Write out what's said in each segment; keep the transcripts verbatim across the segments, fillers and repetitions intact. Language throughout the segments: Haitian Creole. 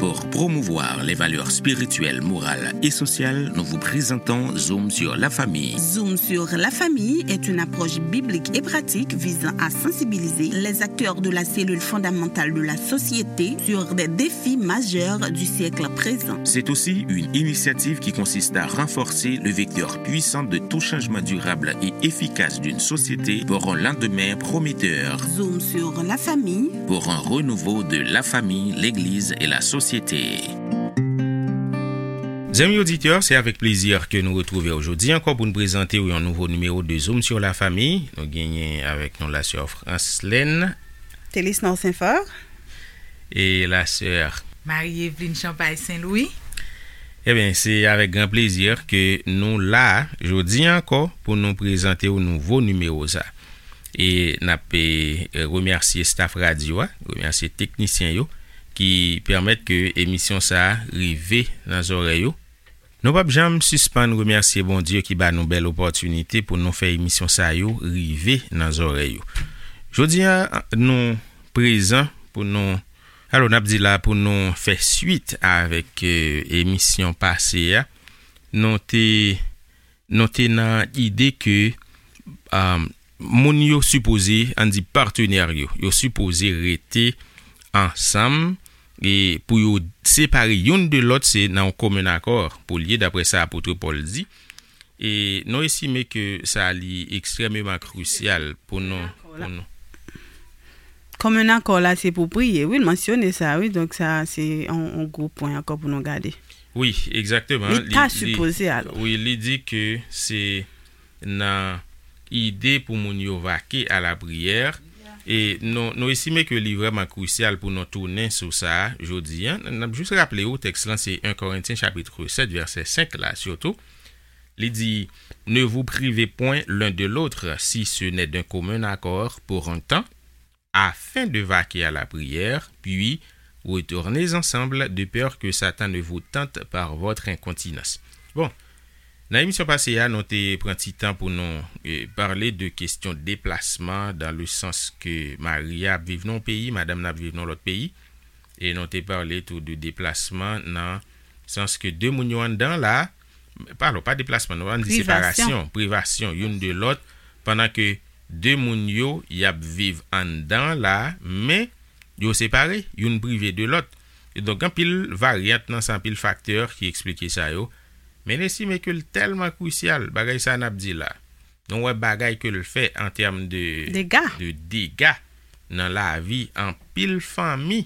Pour promouvoir les valeurs spirituelles, morales et sociales, nous vous présentons Zoom sur la famille. Zoom sur la famille est une approche biblique et pratique visant à sensibiliser les acteurs de la cellule fondamentale de la société sur des défis majeurs du siècle présent. C'est aussi une initiative qui consiste à renforcer le vecteur puissant de tout changement durable et efficace d'une société pour un lendemain prometteur. Zoom sur la famille. Pour un renouveau de la famille, l'Église et la société. Zanmi oditè, se avèk plezi ke nou retwouve w jodi ankò pou n prezante w yon nouvo nimewo de Zoom sur la famille. Nou genyen avèk nou la sè Franslèn. Telis Nò Senfò. E la sè Marie Eveline Champagne Saint-Louis. Ebyen, se avèk gran plezi ke nou la jodi ankò pou nou prezante w nouvo nimewo sa. E n ap, e, remèsye staff radyo a, remèsye teknisyen yo ki pèmèt ke emisyon sa a rive nan zòrèy yo. Nou p ap janm sispann remèsye Bondye ki ba nou bèl opòtinite pou nou fè emisyon sa yo rive nan zòrèy yo. Jodi a, nou prezan pou nou, alò, n ap di la pou nou fè swit avèk, e, emisyon pase a. Nou te, nou te nan ide ke, um, moun yo sipoze, ann di patenè yo, yo sipoze rete ansanm e pou yo separe youn de lòt, se nan yon komen akò pou l ye, daprè sa apot Pòl di. E nou estime ke sa li ekstrèmeman krisyal pou nou, pou nou. Komen akò la, se pou priye. Wi, l mansyone sa, wi. Donk, sa, se yon, yon gwo pwen ankò pou nou gade. Wi, egzakteman. Li ta sipoze, alò. Wi, li di ke se nan ide pou moun yo vake a la priyè. E nou, nou estime ke li vrèman krisyal pou nou tounen sou sa a jodi a. N ap jis raple w, tèks lan se en Korentyen chapit sèt, vèsè senk la, sitou. Li di, Ne vous privez point l'un de l'autre, si ce n'est d'un commun accord pour un temps, afin de vaquer à la prière, puis retournez ensemble, de peur que Satan ne vous tente par votre incontinence. Bon, nan emisyon pase a, nou te pran ti tan pou nou, e, pale de kesyon deplasman, dans le sens que mari a ap viv nan yon peyi, madanm nan ap viv nan lòt peyi. E nou te pale tou de deplasman nan sans ke de moun yo anndan la, pa, alò, pa deplasman, nou ann di separasyon, privasyon youn de lòt, pandan ke de moun yo, y ap viv anndan la, men yo separe, youn prive de lòt. E donk, anpil varyant nan sa, anpil faktè ki eksplike sa yo. Men n estime ke l tèlman krisyal, bagay sa n ap di la. Nou wè bagay ke l fè an tèm de, de dega nan lavi anpil fanmi.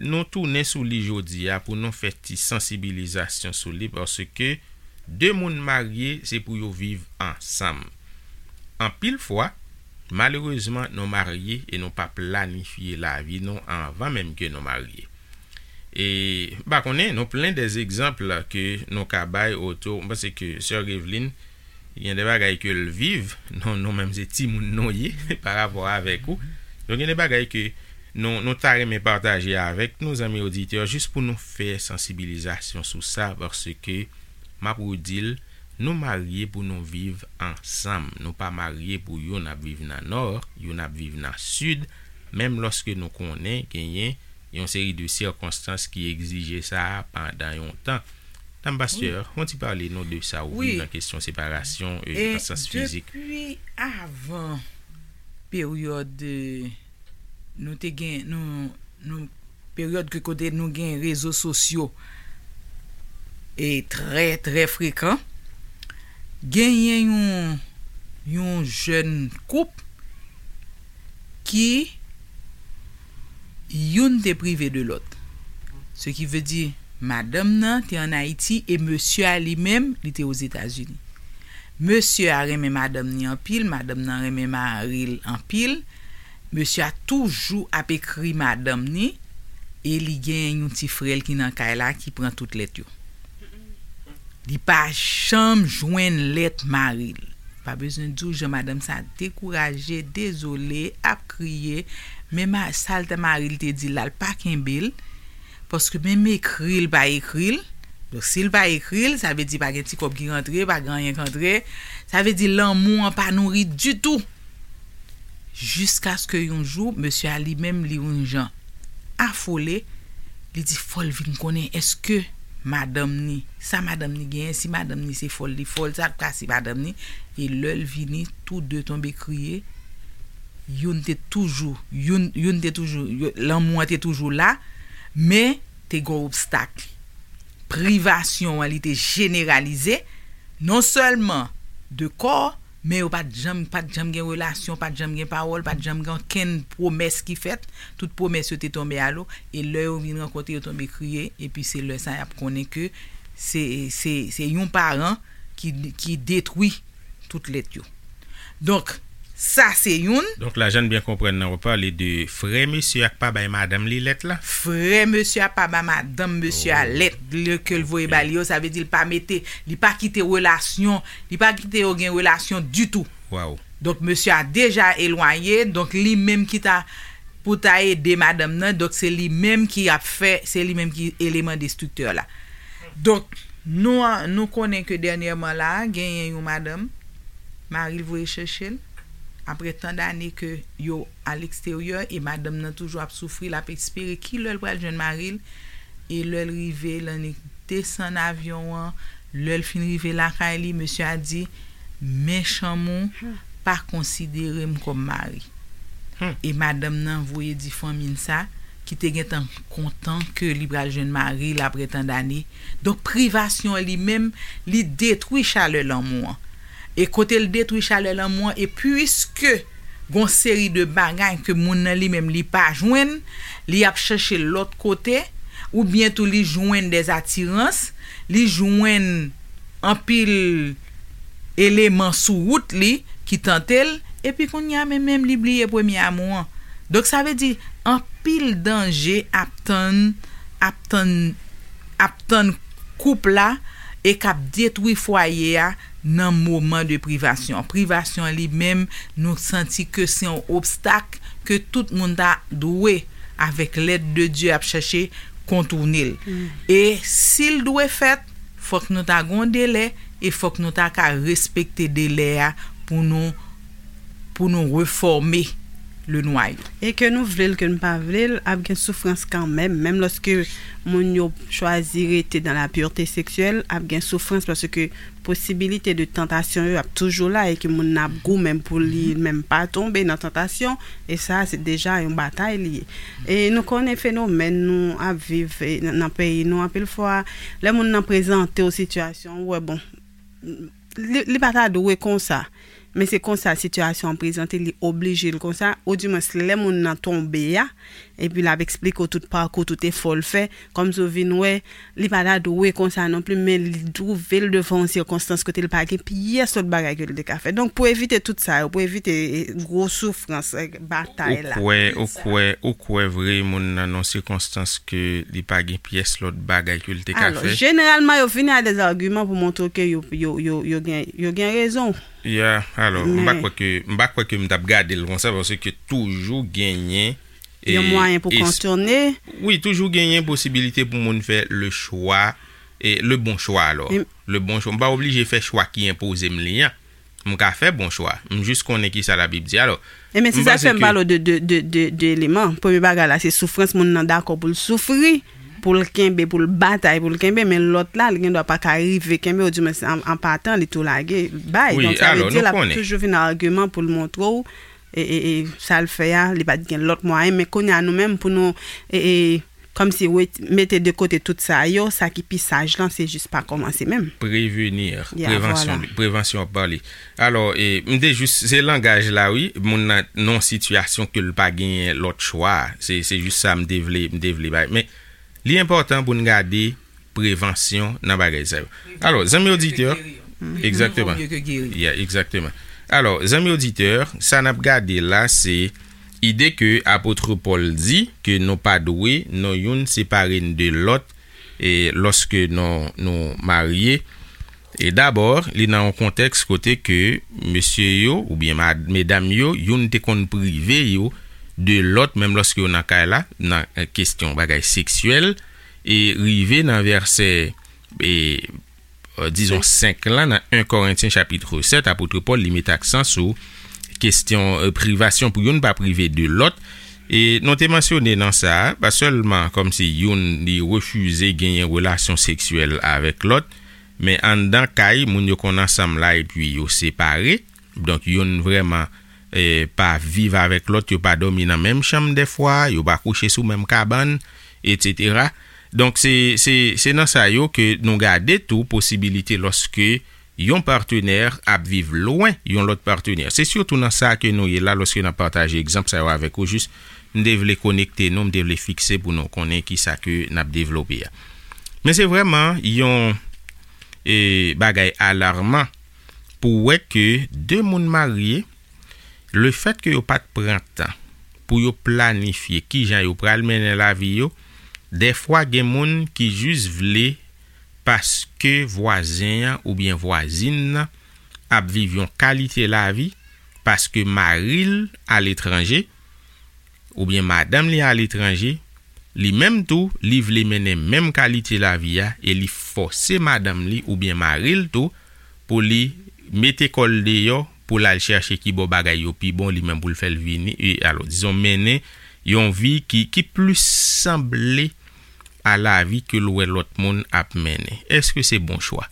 Nou tounen sou li jodi a pou nou fè ti sansibilizasyon sou li, paske de moun marye, se pou yo viv ansanm. Anpil fwa, malerezman, nou marye e nou pa planifye lavi nou anvan menm ke nou marye. E, m pa konnen, nou plen de egzanp ke nou ka bay otou. M panse ke sè Eveline, gen de bagay ke l viv, nou, nou menm se timoun nou ye, pa rapò avèk ou. Donk, gen de bagay ke nou, nou ta renmen pataje avèk nou, zanmi oditè, jis pou nou fè sansibilizasyon sou sa, paske, m ap redi l, nou marye pou nou viv ansanm. Nou pa marye pou youn ap viv nan nò, youn ap viv nan sid, menm lòske nou konnen genyen yon seri de sikonstans ki egzije sa a pandan yon tan. Dam pastè, yon ti pale nou de sa ou viv nan kesyon separasyon, e, nan sans fizik. Depi avan peryòd, e, nou te gen, nou, nou, peryòd ke kote nou gen rezo sosyo e trè, trè frekan, genyen yon, yon jèn koup ki youn te prive de lòt. Se ki vle di, madanm nan te ann Ayiti e mesye a li menm, li te Ozetazini. Mesye a renmen madanm ni anpil, madanm nan renmen mari l anpil. Mesye a toujou ap ekri madanm ni e li gen yon ti frè l ki nan kay la ki pran tout lèt yo. Li pa janm jwenn lèt mari l. Pa bezwen di w jan madanm sa dekouraje, dezole, ap kriye. Men ma-, sa l te mari l te di l la, l pa kenbe l. Paske menm ekri l pa ekri l. Donk, si l pa ekri l, sa vle di pa gen ti kòb ki rantre, pa gen anyen k antre. Sa vle di lanmou an pa nouri ditou. Jiskaske yon jou, mesye a li menm, li yon jan afole, Li di fò l vin konnen èske madanm ni, sa madanm ni genyen, si madanm ni se fò l li fò l, sa l ka si madanm ni. E lè l vini, tou de tonbe kriye. Youn te toujou, youn, youn te toujou, yo- lanmou an te toujou la, men te gen obstak. Privasyon an, li te jeneralize, non sèlman de kò, men yo pa t janm, pa t janm gen relasyon, pa t janm gen pawòl, pa t janm gen okenn pwomès ki fèt. Tout pwomès yo te tonbe alo. E lè yo vin rankontre, yo tonbe kriye. Epi se lè sa y ap konnen ke se, se, se yon paran ki, ki detwi tout lèt yo. Donk, sa se youn. Donk la, jan n byen konprann nan, w pale de frè mesye a k pa bay madanm li lèt la. Frè mesye a pa ba madanm mesye a lèt, lè ke l voye ba li yo, sa vle di l pa mete, li pa kite relasyon, li pa kite yo gen relasyon ditou. Waw. Donk, mesye a deja elwanye, donk li menm ki ta, pou ta ede madanm nan, donk se li menm ki ap fè, se li menm ki eleman destriktè la. Donk, nou, nou konnen ke dènyèman la, genyen yon madanm, mari l voye chèche l, apre tan dane ke yo a leksteryè, e madanm nan toujou ap soufri, l ap espere ki lè l pral jwenn mari l, e lè l rive, l annik desann avyon an, lè l fin rive lakay li, mesye a di, men chanm ou pa konsidere m kòm mari. E madanm nan voye di fanmi l sa, ki te gentan kontan ke li pral jwenn mari l apre tan dane. Donk, privasyon an li menm, li detwi chalè lanmou an. E kote l detwi chalè lanmou an, e piske gon seri de bagay ke moun nan li menm li pa jwenn, li ap chèche lòt kote, oubyen tou li jwenn dèzatirans, li jwenn anpil eleman sou wout li ki tante l, epi kounye a menm, menm li bliye premye amou an. Donk, sa vle di, anpil danje ap tann, ap tann, ap tann koup la e k ap detwi fwaye a nan moman de privasyon. Privasyon an li menm, nou santi ke se yon obstak ke tout moun ta dwe, avèk lèd de Dye, ap chèche kontoune l. E si l dwe fèt, fòk nou ta gon delè e fòk nou ta ka respekte delè a pou nou, pou nou refòme le nwayo. E ke nou vle l, ke n pa vle l, ap gen soufrans kanmenm. Menm lòske moun yo chwazi rete dans la pureté sexuelle, ap gen soufrans paske posibilite de tantasyon yo ap toujou la e ke moun nan ap goumen pou li menm pa tonbe nan tantasyon. E sa, se deja yon batay li ye. E nou konnen fenomèn nou ap viv e, nan, nan peyi nou, anpil fwa, lè moun nan prezante w sitiyasyon, ou wè, bon, li, li pa ta dwe konsa. Men se konsa sitiyasyon an prezante, li oblije l konsa. Oudimwens, lè moun nan tonbe a, epi l ap eksplike w tout pakou, tout efò l fè, kòmsi w vin wè, li pa ta dwe konsa non pli, men li twouve l devan yon sikonstans kote l pa gen pyès lòt bagay ke l te ka fè. Donk, pou evite tout sa yo, pou evite e, gwo soufrans, e, batay la. Ou kwè, ou kwè, ou kwè vre moun nan nan sikonstans ke li pa gen pyès lòt bagay ke l te ka fè? Alò, jeneralman, yo vini a dèzagiman pou montre ke yo, yo, yo, yo gen, yo gen rezon. Ya, alò, m pa kwè ke, m pa kwè ke m t ap gade l konsa, paske toujou genyen yon mwayen pou kontourne. Wi, toujou genyen posibilite pou moun fè le chwa, e le bon chwa, alò. Le bon chwa. M pa oblije fè chwa ki enpoze m li an. M ka fè bon chwa. M jis konnen ki sa Labib di, alò. E men se sa k fè m pale w de, de, de, de, de eleman. Premye bagay la, se soufrans moun nan dakò pou l soufri, pou l kenbe, pou l batay, pou l kenbe, men lòt la, li gen dwa pa ka rive kenbe, oudimwens an, an patan, li tou lage, bay. Donk, sa vle di, l ap toujou vin agiman pou l montre w, e, e, e, sa l fè a, li pa t gen lòt mwayen, men kounye a nou menm, pou nou, e, e, kòmsi wet-, mete de kote tout sa yo, sa ki pi saj lan, se jis pa kòmanse menm. Prevenir, prevansyon, prevansyon ap pale. Alò, e, m te jis, se langaj la, wi, moun nan, nan sitiyasyon ke l pa genyen lòt chwa. Se, se jis sa m te vle, m te vle bay. Men, li enpòtan pou n gade prevansyon nan bagay sa yo. Alò, zanmi oditè, egzakteman. Ya, egzakteman. Alò, zanmi oditè, sa n ap gade la, se ide ke apot Pòl di ke nou pa dwe, nou youn separe n de lòt, e lòske nou, nou marye. E dabò, li nan yon kontèks kote ke mesye yo, oubyen mad-, medam yo, youn te konn prive yo de lòt, menm lòske yo nan kay la, nan, e, kesyon bagay seksyèl, e rive nan vèsè, e, e, dizon, senk lan, nan en Korentyen chapit sèt, apot Pòl, li met aksan sou kesyon, e, privasyon pou youn pa prive de lòt, E nou te mansyone nan sa, pa sèlman kòmsi youn li refize genyen relasyon seksyèl avèk lòt, men anndan kay, moun yo konn ansanm la epi yo separe. Donk, youn vrèman eh, pa viv avèk lòt, yo pa dòmi nan menm chanm dèfwa, yo pa kouche sou menm kabann, etsetera. Donk, se, se, se nan sa yo ke nou gade tou posibilite lòske yon patenè ap viv lwen yon lòt patenè. Se sitou nan sa ke nou ye la lòske n ap pataje egzanp sa yo avèk ou, jis m te vle konekte nou, m te vle fikse pou nou konnen ki sa ke n ap devlope a. Men se vrèman yon eh, bagay alarman pou wè ke de moun marye, lefèt ke yo pa t pran tan pou yo planifye kijan yo pral mennen lavi yo, dèfwa gen moun ki jis vle paske vwazen an oubyen vwazin nan ap viv yon kalite lavi, paske mari l aletranje, oubyen madanm li aletranje, li menm tou, li vle mennen menm kalite lavi a e li fòse madanm li oubyen mari l tou pou li mete kò l deyò pou l al chèche ki bò bagay yo pi bon, li menm pou l fè l vini, e, alò, dizon, mennen yon vi ki, ki plis sanble a lavi ke l wè lòt moun ap mennen. Èske se bon chwa?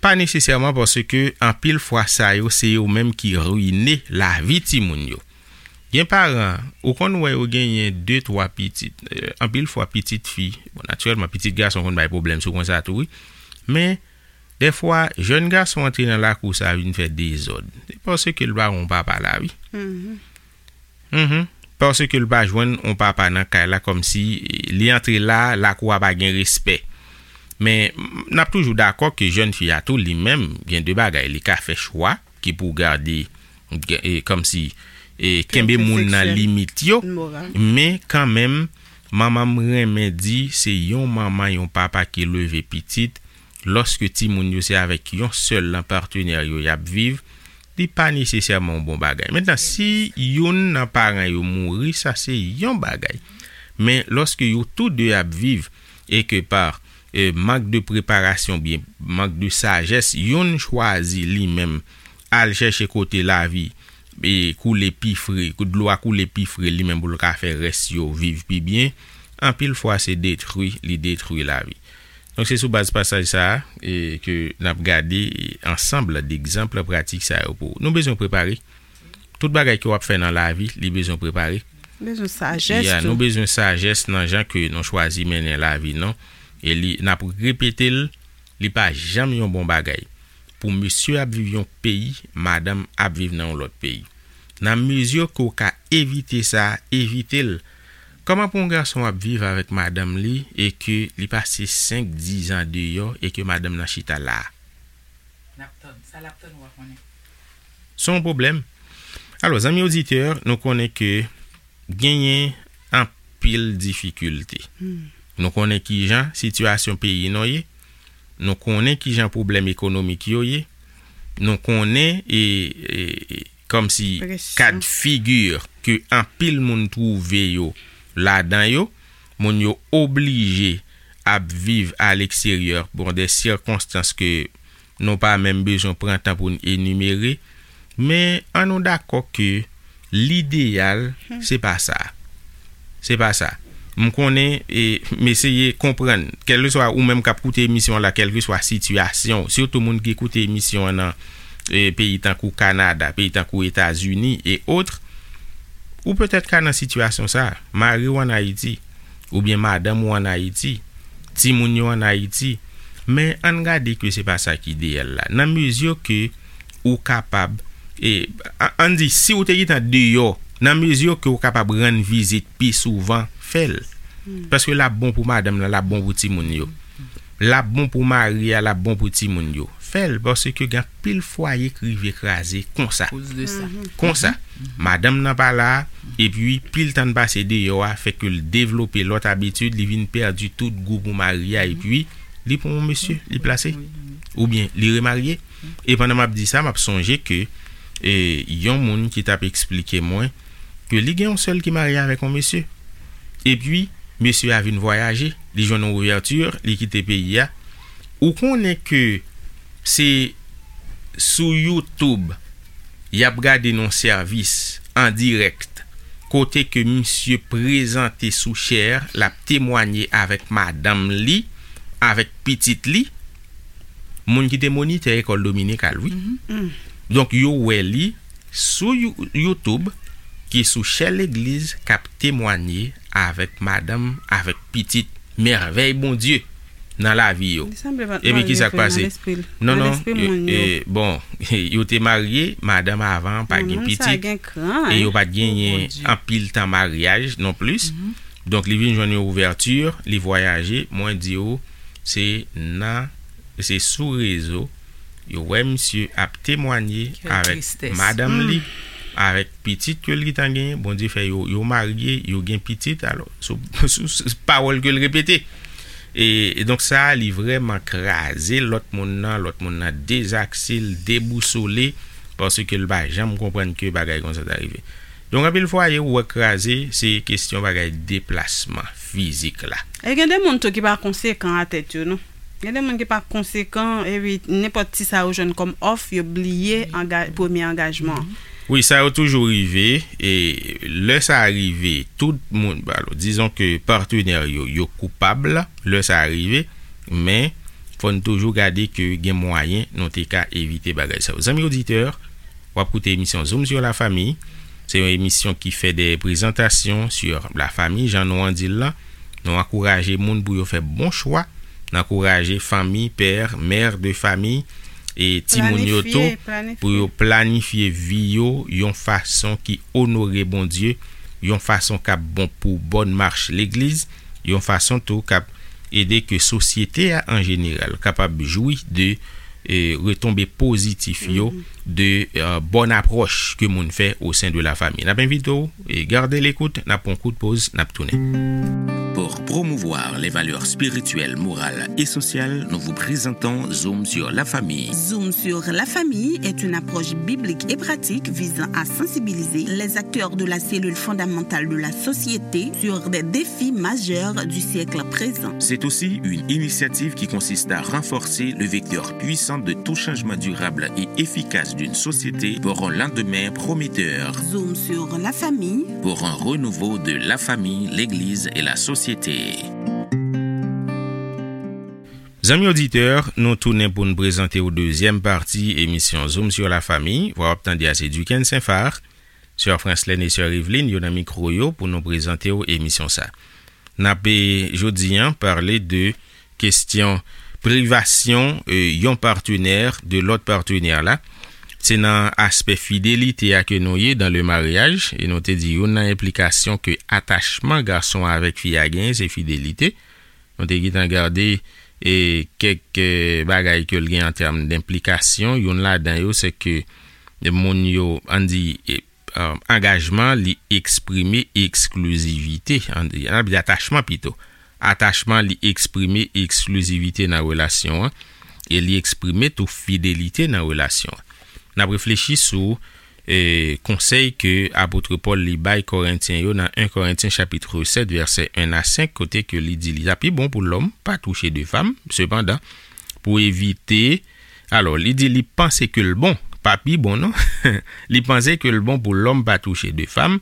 Pa nesesèman, paske anpil fwa sa yo se yo menm ki rine lavi timoun yo. Gen paran, ou konn wè yo genyen de, twa pitit. Eh, anpil fwa pitit fi, bon, natirèlman, pitit gason konn bay pwoblèm sou konsa tou, wi. Men, dèfwa, jèn gason antre nan lakou sa vin fè dezòd. Se paske l pa yon papa la, wi. Mhm. Paske l pa jwenn yon papa nan kay la, kòmsi li antre la, lakou a pa gen respè. Men, n ap toujou dakò ke jèn fi a tou, li menm, gen de bagay, li ka fè chwa ki pou gade, e, kòmsi, e, kenbe moun nan limit yo. Men, kanmenm, manman m renmen di, se yon manman, yon papa ki leve pitit, lòske timoun yo se avèk yon sèl nan patenè yo y ap viv, li pa nesesèman yon bon bagay. Mentnan, si youn nan paran yo mouri, sa se yon bagay. Men, lòske yo tou de ap viv, e ke pa, e, mank de preparasyon, byen, mank de sajès, youn chwazi li menm al chèche kote lavi, e, koule pi fre, dlo a koule pi fre, li menm pou l ka fè rès yo viv pi byen, anpil fwa se detwi, li detwi lavi. Donk, se sou baz pasaj sa a, e, ke n ap gade, e, ansanm degzanp pratik sa yo pou ou. Nou bezwen prepare. Tout bagay ke w ap fè nan lavi, li bezwen prepare. Bezwen sajès tou. Ya, nou bezwen sajès nan jan ke nou chwazi mennen lavi nou. E li, n ap repete l, li pa janm yon bon bagay pou mesye ap viv yon peyi, madanm ap viv nan yon lòt peyi. Nan mezi ke w ka evite sa, evite l. Kòman pou yon gason ap viv avèk madanm li e ke li pase senk, diz an deyò e ke madanm nan chita la a? L ap tann. Sa l ap tann, ou pa konnen. Se yon pwoblèm. Alò, zanmi oditè, nou konnen ke genyen anpil difikilte. Hmm. Nou konnen kijan sitiyasyon peyi nou ye. Nou konnen kijan pwoblèm ekonomik yo ye. Nou konnen e, e, e, kòmsi kad figi ke anpil moun twouve yo ladan yo. Moun yo oblije ap viv aleksteryè, bon, de sikonstans ke nou pa menm bezwen pran tan pou n enimere. Men, an nou dakò ke lideyal, se pa sa. Se pa sa. M konnen, e, m eseye konprann, kèlkeswa ou menm k ap koute emisyon an la, kèlkeswa sitiyasyon w, sitou moun ki koute emisyon an nan, e, peyi tankou Kanada, peyi tankou Etazini e otre, ou petèt ka nan sitiyasyon sa a. Mari w ann Ayiti, oubyen madanm ou ann Ayiti, timoun yo ann Ayiti. Men ann gade ke se pa sa ki ideyal la. Nan mezi ke ou kapab, e, a-, ann di, si ou te gentan deyò, nan mezi ke ou kapab rann vizit pi souvan, fè l. Hmm. Paske l ap bon pou madanm nan, l ap bon pou timoun yo. L ap bon pou mari a, l ap bon pou timoun yo. Fè l, paske gen anpil fwaye k rive kraze konsa. Akoz de sa. Mhm. Konsa. Mhm. Madanm nan pa la, epi pil tan l pase deyò a, fè ke l devlope lòt abitid, li vin pèdi tout gou pou mari a, epi li pran yon mesye, li plase, oubyen li remarye. E pandan m ap di sa, m ap sonje ke, e, yon moun ki t ap eksplike mwen ke li gen yon sè l ki marye avèk yon mesye. Epi, mesye a vin vwayaje, li jwenn yon ouvèti, li kite peyi a. Ou konnen ke se sou YouTube y ap gade nan sèvis an dirèk kote ke misye prezante sou chè, l ap temwanye avèk madanm li, avèk pitit li, moun ki te monitè lekòl dominikal, wi. Donk, yo wè li sou You- YouTube, ki sou chè legliz, k ap temwanye avèk madanm, avèk pitit, mèvèy Bondye nan lavi yo. Li sanble pa t Epi, ki marye sa k tou, nan pase? Lespri l. Non, Nan non, lespri e, moun yo. e, bon, yo te marye, madanm avan pa Non, gen moun sa pitit, gen kran, e yo pa t genyen Bondye. anpil tan maryaj non plis. Donk, li vin jwenn yon ouvèti, li vwayaje, mwen di w, se nan, se sou rezo, yo wè misye ap temwanye Quelle avèk tristesse. madanm li, avèk pitit ke l gentan genyen, Bondye fè yo, yo marye, yo gen pitit, alò, sou, sou, sou pawòl ke l repete. E, e donk sa, li vrèman kraze lòt moun nan, lòt moun nan dezakse, l debousole, paske l pa janm konprann ke bagay konsa ta rive. Donk, anpil fwaye, ou wè kraze, se kesyon bagay deplasman fizik la. E gen de moun tou ki pa konsekan a tèt yo, non. Gen de moun ki pa konsekan, epi nenpòt ti sa yo jwenn kòm òf, yo bliye anga- premye angajman an. Wi, sa yo toujou rive, e lè sa rive, tout moun, alò, dizon ke patnè yo, yo koupab, lè sa rive, men fò n toujou gade ke gen mwayen nou te ka evite bagay sa yo. Zanmi oditè, w ap koute emisyon Zoom sur la famille. Se yon emisyon ki fè de prezantasyon sur la famille, jan nou an di l lan. Nou ankouraje moun pou yo fè bon chwa. Nou ankouraje fanmi, pè, mè de fanmi, e timoun yo Planifye, tou, planifye. pou yo planifye vi yo yon fason ki onore Bondye, yon fason k ap bon pou bòn mach legliz, yon fason tou k ap ede ke sosyete a an jeneral kapab jwi de, e, retonbe pozitif yo, de, e, bòn apwòch ke moun fè o sen de la fami. N ap envite w, e, gade lekout, n ap pran kout poz, n ap tounen. Pour promouvoir les valeurs spirituelles, morales et sociales, nous vous présentons Zoom sur la famille. Zoom sur la famille est une approche biblique et pratique visant à sensibiliser les acteurs de la cellule fondamentale de la société sur des défis majeurs du siècle présent. C'est aussi une initiative qui consiste à renforcer le vecteur puissant de tout changement durable et efficace d'une société pour un lendemain prometteur. Zoom sur la famille. Pour un renouveau de la famille, l'Église et la société. Zanmi oditè, nou tounen pou n prezante w dezyèm pati emisyon Zoom sur la famille. Vwa w ap tande a se Duquesne Saint-Phar, sè Franslène e sè Eveline yo nan mikwo yo pou nou prezante w emisyon sa. N ap, e, jodi an, pale de kesyon privasyon, e, yon patnè de lòt patnè la. Se nan aspè fidelite a ke nou ye dans le mariage, e nou te di youn nan enplikasyon ke atachman gason avèk fi a genyen, se fidelite. Nou te gentan gade, e, kèk, e, bagay ke l gen an tèm denplikasyon. Youn ladan yo, se ke moun yo, ann di, e, e, angajman, li eksprime eksklizivite, ann di, ann di atachman pito. Atachman, li eksprime eksklizivite nan relasyon an, e li eksprime tou fidelite nan relasyon an. N ap reflechi sou, e, konsèy ke apot Pòl li bay Korentyen yo nan en Korentyen chapit sèt, vèsè en a senk, kote ke li di li ta pi bon pou lòm pa touche de fanm. Sepandan, pou evite, alò, li di li panse ke l bon, pa pi bon, non. Li panse ke l bon pou lòm pa touche de fanm.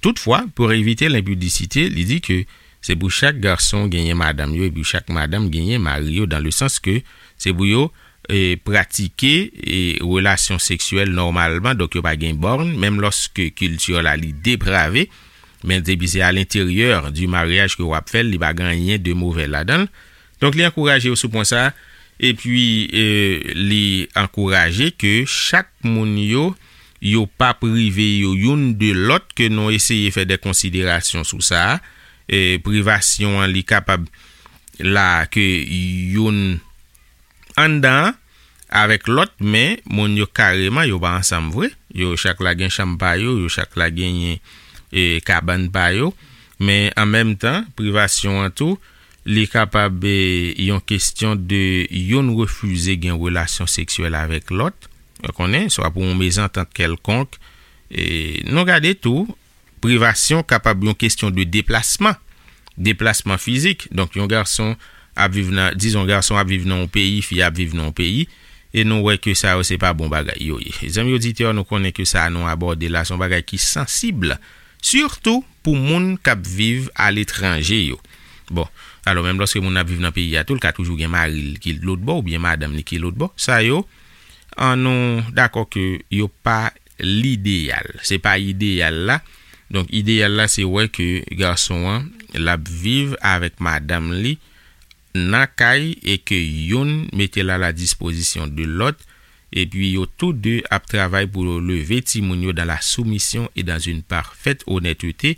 Toutfwa, pou evite lenpidisite, li di ke se pou chak gason genyen madanm yo, epi chak madanm genyen mari yo, dans le sens que se pou yo, e, pratike, e, relasyon seksyèl nòmalman, donk yo pa gen bòn, menm lòske kilti la li deprave, men depi se à l'intérieur du mariage ke w ap fè l, li pa gen anyen de movè ladan l. Donk, li ankouraje yo sou pwen sa, epi, e, li ankouraje ke chak moun yo, yo pa prive yo youn de lòt, ke nou eseye fè de konsiderasyon sou sa, e, privasyon an, li kapab la ke youn anndan an avèk lòt, men moun yo kareman, yo pa ansanm vre. Yo chak la gen chanm pa yo, yo chak la genyen, e, kabann pa yo. Men an menm tan, privasyon an tou, li kapab, e, yon kesyon de youn refize gen relasyon seksyèl avèk lòt. Ou konnen, swa pou yon mezantant kèlkonk. E, nou gade tou, privasyon kapab yon kesyon de deplasman, deplasman fizik. Donk, yon gason ap viv nan, dizon, gason ap viv nan yon peyi, fi ap viv nan yon peyi, e nou wè ke sa yo se pa bon bagay yo ye. Zanmi oditè, nou konnen ke sa nou abòde la, se yon bagay ki sansib, Sitou pou moun k ap viv aletranje yo. Bon, alò, menm lòske moun nan ap viv nan peyi a tou, l ka toujou gen mari l ki lòtbò oubyen madanm li ki lòtbò. Sa yo, an nou dakò ke yo pa lideyal. Se pa ideyal la. Donk, ideyal la, se wè ke gason an, l ap viv avèk madanm li nan kay e ke youn mete l a la dispozisyon de lòt, epi yo tou de ap travay pou yo leve timoun yo dans la soumission et dans une parfaite honnêteté,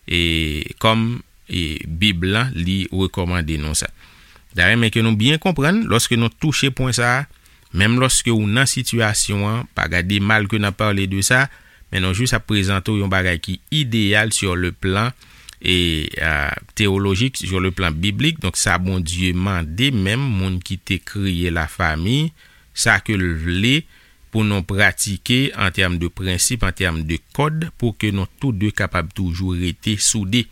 e kòm e Bib lan li rekòmande nou sa. Dayè, men ke nou byen konprann, lòske nou touche pwen sa a, menm lòske ou nan sitiyasyon an, pa gade mal ke n ap pale de sa, men nou jis ap prezante w yon bagay ki ideyal sur le plan e euh, théologique, sur le plan biblique. Donk, sa Bondye mande menm moun ki te kreye lafami, sa ke l vle pou nou pratike an tèm de prensip, an tèm de kòd, pou ke nou tou de kapab toujou rete soude.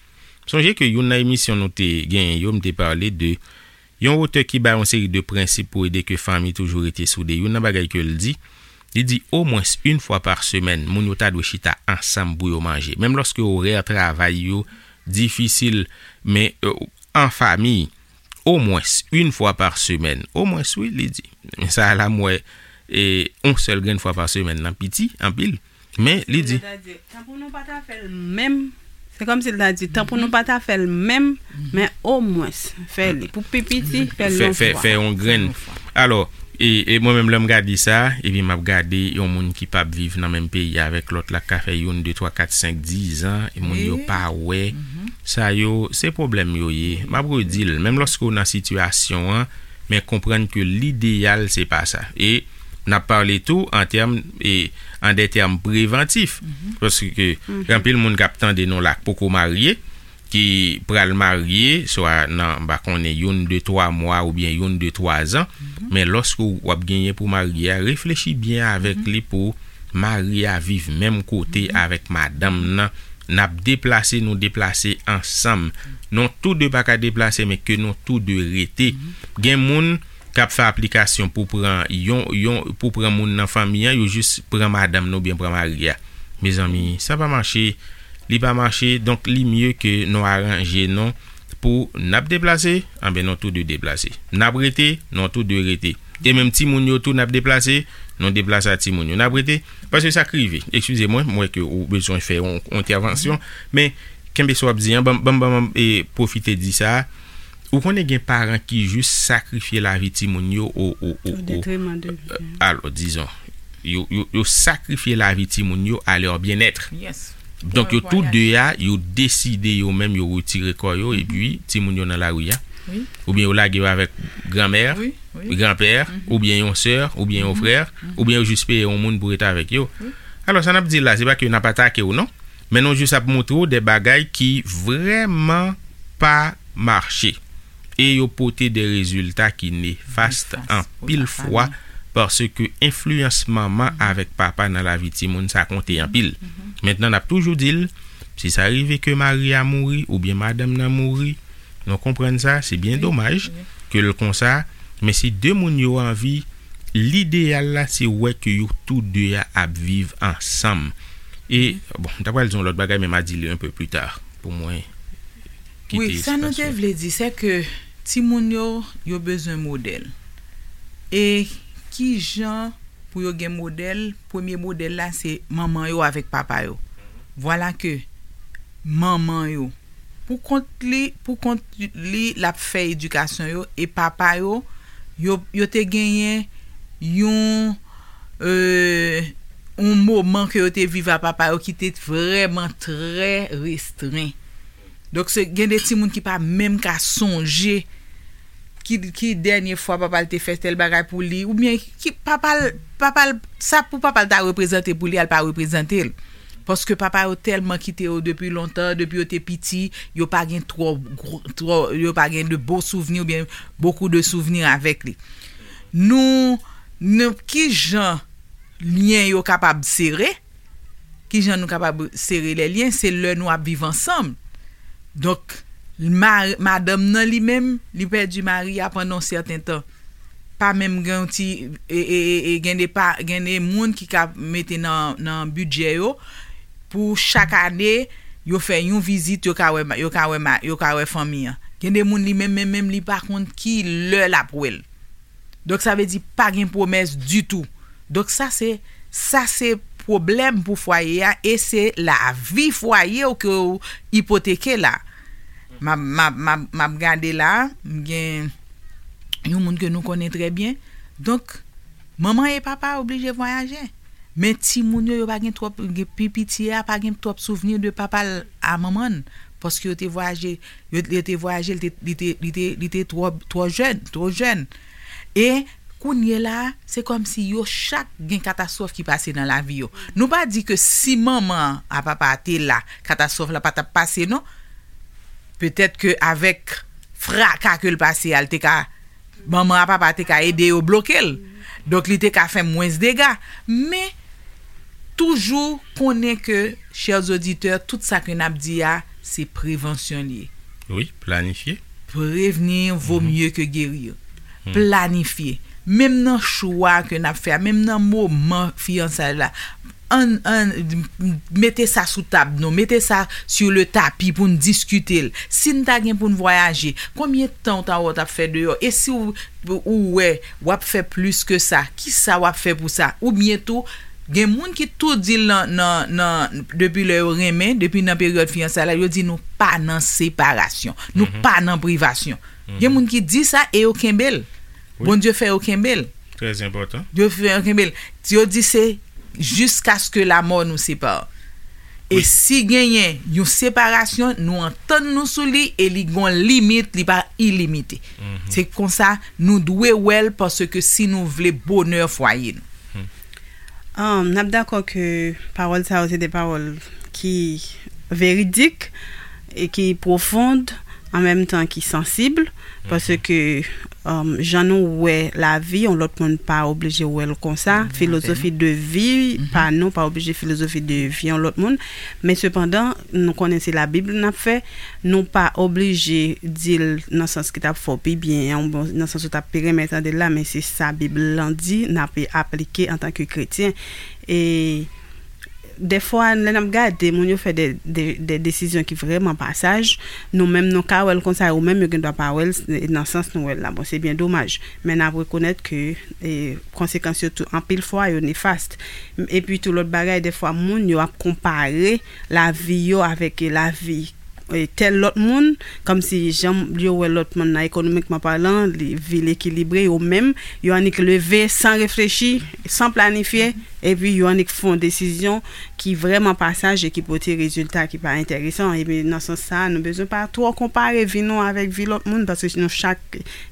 Sonje ke youn nan emisyon nou te genyen yo, m te pale de yon otè ki bay yon seri de prensip pou ede ke fanmi toujou rete soude. Youn nan bagay ke l di, li di omwens yon fwa pa semèn, moun yo ta dwe chita ansanm pou yo manje. Menm lòske orè travay yo difisil, men euh, an fanmi, omwens yon fwa pa semèn. Omwens, wi, li di. Men sa a la, m wè, e, yon sèl grenn fwa pa semèn nan piti, anpil. Men, li di. Sètadi, tanpri nou pa ta fè l menm. Se kòmsi l ta di, tanpri nou pa ta fè l menm, men omwens, fè li. Pou pi piti, fè l yon fwa. Fè yon grenn. Alò, e, e mwen menm, lè m gade sa, epi m ap gade yon moun ki p ap viv nan menm peyi avèk lòt la, k ka fè youn, de, twa, kat, senk, diz an, e moun yo pa wè. Sa yo, se pwoblèm yo ye. M ap redi l, menm lòske w nan sitiyasyon an, men konprann ke lideyal, se pa sa. E n ap pale tou an tèm, e, an de tèm prevantif. Paske gen anpil moun k ap tande nou la k poko marye, ki pral marye, swa nan, m pa konnen, youn, de, twa mwa oubyen youn, de, twa zan. Men lòske w ap genyen pou marye a, reflechi byen avèk li pou mari a viv menm kote avèk madanm nan. N ap deplase, nou deplase ansanm. Nou tou de pa ka deplase, men ke nou tou de rete. Gen moun k ap fè aplikasyon pou pran yon, yon, pou pran moun nan fanmi an, yo jis pran madanm nan oubyen pran mari a. Mezanmi, sa pa mache, li pa mache, donk li mye ke nou aranje nou pou n ap deplase, anben nou tou de deplase. N ap rete, nou tou de rete. E menm timoun yo tou n ap deplase, nou deplase a timoun yo. N ap rete, paske sa k rive. Eskize mwen, m wè ke ou bezwen fè yon, yon entèvansyon, men kenbe sa w ap di an, ban m, ban m, ban m, e, pwofite di sa. Ou konnen gen paran ki jis sakrifye lavi timoun yo o, o, o, o, alò, dizon, yo, yo, yo sakrifye lavi timoun yo à leur bien-être. Donk, yo tou de a, yo deside yo menm, yo retire kò yo, epi timoun yo nan lari a. Oubyen yo lage yo avèk granmè, granpè, oubyen yon sè, oubyen yon frè, oubyen yo jis peye yon moun pou rete avèk yo. Alò, sa n ap di la, se pa ke n ap atake w, non. Men nou jis ap montre w de bagay ki vrèman pa mache. E yo pote de rezilta ki nefas anpil fwa, paske enfliyans manman avèk papa nan lavi timoun, sa konte anpil. Mentnan, n ap toujou di l, si sa rive ke mari a mouri oubyen madanm nan mouri, nou konprann sa, se byen domaj ke l konsa, men si de moun yo anvi, lideyal la, se wè ke yo tou de a ap viv ansanm. E, bon, m ta pral di yon lòt bagay, men m a di li un peu plus tard, pou mwen kite espas. Wi, sa nou te vle di, se ke timoun yo, yo bezwen modèl. E ki jan pou yo gen modèl? Premye modèl la, se manman yo avèk papa yo. Vwala ke manman yo, pou kont li, pou kont li, l ap fè edikasyon yo, e papa yo, yo, yo te genyen yon, euh, yon moman ke yo te viv a papa yo ki te vrèman trè restren. Donk, se, gen de timoun ki pa menm ka sonje ki, ki dènye fwa papa l te fè tèl bagay pou li, oubyen ki papa l, papa l, sa pou papa l ta reprezante pou li, a l pa reprezante l. Paske papa yo tèlman kite yo depi lontan, depi yo te piti, yo pa gen twò gwo, twò, yo pa gen de bon souvni oubyen beaucoup de souvni avèk li. Nou, nou, ki jan lyen yo kapab sere? Ki jan nou kapab sere lè lyen? Se lè nou ap viv ansanm. Donk, ma-, madanm nan li menm, li pèdi mari a pandan yon sèten tan. Pa menm gen yon ti, e, e, e, e, gen de pa, gen de moun ki ka mete nan, nan bidjè yo pou chak ane, Yo fè yon vizit, yo ka wè, yo ka wè, yo ka wè fanmi an. Gen de moun li menm, menm, menm, li pa konn ki lè l ap wè l. Donk, sa vle di pa gen pwomès ditou. Donk, sa se, sa se pwoblèm pou fwaye a e se lavi fwaye w ke w ipoteke la. M ap, m ap, m ap, m ap gade la, m gen yon moun ke nou konnen trè byen. Donk, manman e papa oblije vwayaje. Men timoun yo, yo pa gen twòp, gen pi piti a pa gen twòp souvni de papa l a manman l. Paske yo te vwayaje, yo, yo te vwayaje, li te, li te, li te, li te twò, twò jèn, twò jèn. E kounye la, se kòmsi yo chak gen katastwòf ki pase nan lavi yo. Nou pa di ke si manman a papa a te la, katastwòf la pa t ap pase, non. Petèt ke avèk fraka ke l pase a, l te ka, manman a papa te ka ede yo bloke l. Donk, li te ka fè mwens dega. Men, toujou konnen ke, chè oditè, tout sa ke n ap di a, se prevansyon li ye. Wi, planifye. Prévenir vaut mieux que guérir. Planifye. Menm nan chwa ke n ap fè a, menm nan moman fiyansay la, ann, ann, mete sa sou tab nou, mete sa sur le tapis pou n diskite l. Si n ta gen pou n vwayaje, konbyen tan w ta wè w t ap fè deyò? E si w, ou wè w ap fè plis ke sa, kisa w ap fè pou sa? Oubyen tou, gen moun ki tou di l nan, nan, nan, depi lè yo renmen, depi nan peryòd fiyansay la, yo di nou pa nan separasyon, nou pa nan privasyon. Gen moun ki di sa e yo kenbe l. Bondye fè yo kenbe l. Trè enpòtan. Yo fè yo kenbe l. Yo di se jiskaske lamò nou separe. E si genyen yon separasyon, nou antann nou sou li e li gon limit, li pa ilimite. Se konsa nou dwe wè l paske si nou vle bonè fwaye nou. Um, n ap dakò ke pawòl sa yo se de pawòl ki veridik e ki pwofond, an menm tan ki sansib, paske um, jan nou wè lavi, yon lòt moun pa oblije wè l konsa. Filozofi de vi pa nou pa oblije filozofi de vi yon lòt moun. Men sepandan, nou konnen se Labib n ap fè, nou pa oblije di l nan sans ki t ap fè w pi byen, nan sans ou t ap pi renmen tande l la, men se sa Bib lan di, n ap aplike antanke kretyen. E dèfwa, lè n ap gade moun yo fè de, de, de desizyon ki vrèman pa saj, nou menm nou ka wè l konsa, yo menm yo gen dwa pa wè l nan sans nou wè l la. Bon, se byen domaj. Men n ap rekonèt ke e, konsekans yo tou, anpil fwa, yo nefast. Epi tou, lòt bagay, dèfwa, moun yo ap konpare lavi yo avèk lavi tèl lòt moun, kòmsi jan yo wè lòt moun nan, ekonomikman palan, li, vi l ekilibre, yo menm, yo annik leve san reflechi, san planifye, epi yo annik fè yon desizyon ki vrèman pa saj e ki pote rezilta ki pa enteresan. Epi nan sans sa a, nou bezwen pa twò konpare vi nou avèk vi lòt moun, paske nou chak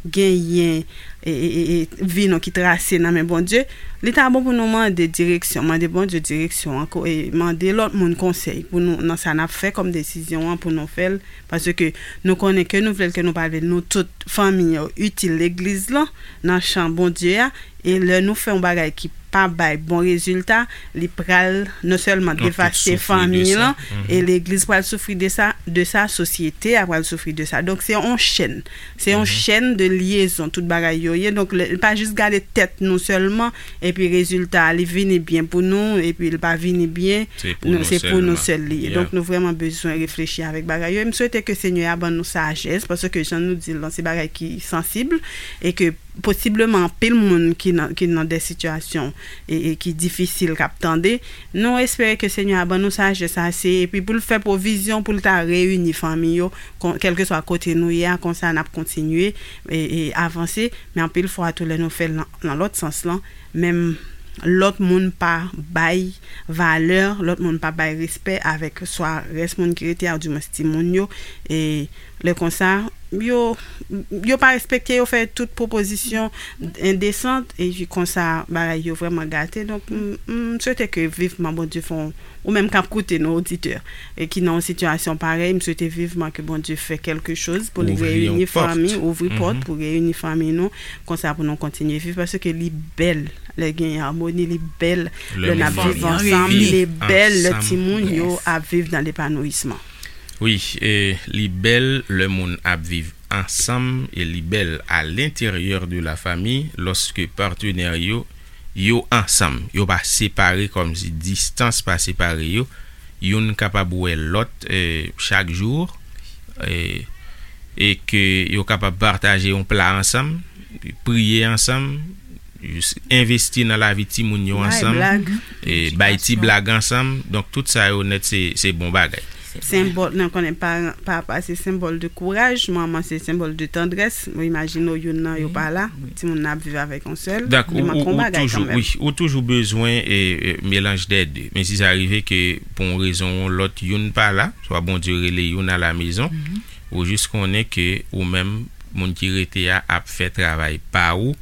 genyen e, e, e, e, vi nou ki trase nan men Bondye, li ta bon pou nou mande direksyon, mande Bondye direksyon an, e mande lòt moun konsèy pou nou nan sa n ap fè kòm desizyon an pou nou fè l, paske nou konnen ke nou vle l ke nou pa vle l, nou tout fanmi yo itil legliz lan nan chan Bondye a, e lè nou fè yon bagay ki pa bay bon rezilta, li pral non sèlman devaste fanmi lan, e legliz pral soufri de sa, de sa, sosyete a pral soufri de sa. Donk se yon chèn. Se yon chèn de lyezon, tout bagay yo ye. Donk, lè, pa jis gade tèt nou sèlman, epi rezilta a, li vini byen pou nou, epi l pa vini byen, se pou nou sèl li ye. Donk, nou vrèman bezwen reflechi avèk bagay yo. E m swete ke Senyè a ban nou sajès, paske jan nou di l lan, se bagay ki sansib, e ke posibleman anpil moun ki nan, ki nan de sitiyasyon e, e ki difisil k ap tande. Nou espere ke Senyè a ban nou sajès ase, epi pou l fè pwovizyon pou l ta reyini fanmi yo, kèlkeswa kote nou ye a, konsa n ap kontinye e, e avanse. Men anpil fwa tou, lè nou fè l nan, nan lòt sans lan, menm lòt moun pa bay valè, lòt moun pa bay respè avèk swa rès moun ki rete a, oudimwens timoun yo. E lè konsa, yo, yo pa respekte, yo fè tout pwopozisyon endesan, epi konsa bagay yo vrèman gate. Donk, m, m swete ke vivman Bondye fè yon, ou menm k ap koute nou, oditè, e ki nan yon sitiyasyon parèy, m swete vivman ke Bondye fè kèlkechoz pou li reyini fanmi, ouvri pòt pou reyini fanmi nou, konsa pou nou kontinye viv, paske li bèl lè gen amoni, li bèl lè n ap viv ansanm, li bèl lè timoun yo ap viv nan lepanouyisman. Wi, e li bèl lè moun ap viv ansanm, e li bèl à l'intérieur de la famille, lòske patnè yo, yo ansanm, yo pa separe, kòmsi distans pa separe yo, youn kapab wè lòt e, chak jou e, e ke yo kapab pataje yon pla ansanm, priye ansanm, jis envesti nan lavi timoun yo ansanm, e bay ti blag ansanm. Donk tout sa yo nèt se, se bon bagay. Senbòl, nou konnen paran, papa se senbòl de kouraj, manman se senbòl de tandrès. Mwen imajine w youn nan yo pa la, timoun nan ap viv avèk yon sèl. Donk ou, ou, ou toujou, wi, ou toujou bezwen e, e, melanj dè de. Men si sa rive ke pou yon rezon ou yon lòt youn pa la, swa Bondye rele youn alamezon, ou jis konnen ke ou menm, moun ki rete a ap fè travay pa ou,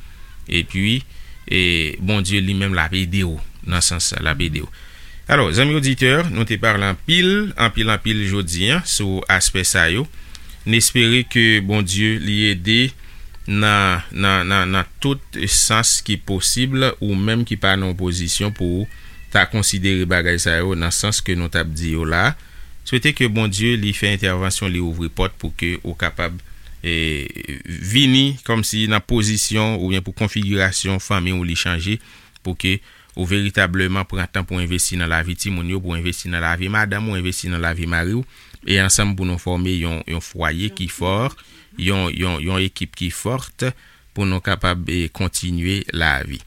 epi e, Bondye li menm l ap ede w nan sans sa, l ap ede w. Alò, zanmi oditè, nou te pale anpil, anpil, anpil jodi a sou aspè sa yo. N espere ke Bondye li ede nan, nan, nan, nan tout sans ki posib, ou menm ki pa nan yon pozisyon pou w ta konsidere bagay sa yo nan sans ke nou t ap di yo la. Swete ke Bondye li fè entèvansyon, li ouvri pòt pou ke ou kapab e, vini kòmsi nan pozisyon oubyen pou konfigirasyon fanmi w li chanje, pou ke ou veritableman pran tan pou envesti nan lavi timoun yo, pou envesti nan lavi madanm ou, envesti nan lavi mari w, e ansanm pou nou fòme yon, yon fwaye ki fò, yon, yon, yon ekip ki fòt, pou nou kapab e, kontinye lavi.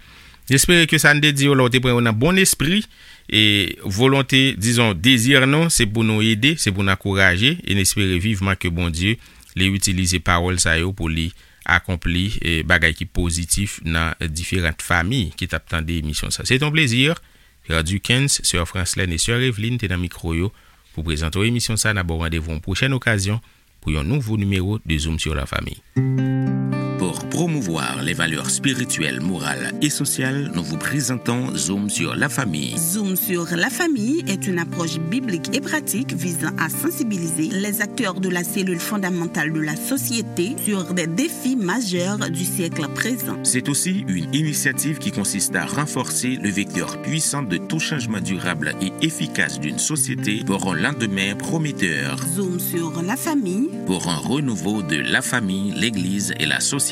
N espere ke sa n te di yo la, ou te pran yo nan bon espri, e volonte, dizon, dezi nou, se pou nou ede, se pou nou ankouraje, e n espere vivman ke Bondye li itilize pawòl sa yo pou li akonpli e, bagay ki pozitif nan diferan fanmi ki t ap tande emisyon sa. Se t on plezi. Frè Duckens, sè Franslèn e sè Eveline te nan mikwo yo pou prezante w emisyon sa. N ap ba w randevou yon pwochèn okazyon pou yon nouvo nimewo de Zoom sur la famille. Pour promouvoir les valeurs spirituelles, morales et sociales, nous vous présentons Zoom sur la famille. Zoom sur la famille est une approche biblique et pratique visant à sensibiliser les acteurs de la cellule fondamentale de la société sur des défis majeurs du siècle présent. C'est aussi une initiative qui consiste à renforcer le vecteur puissant de tout changement durable et efficace d'une société pour un lendemain prometteur. Zoom sur la famille. Pour un renouveau de la famille, l'Église et la société.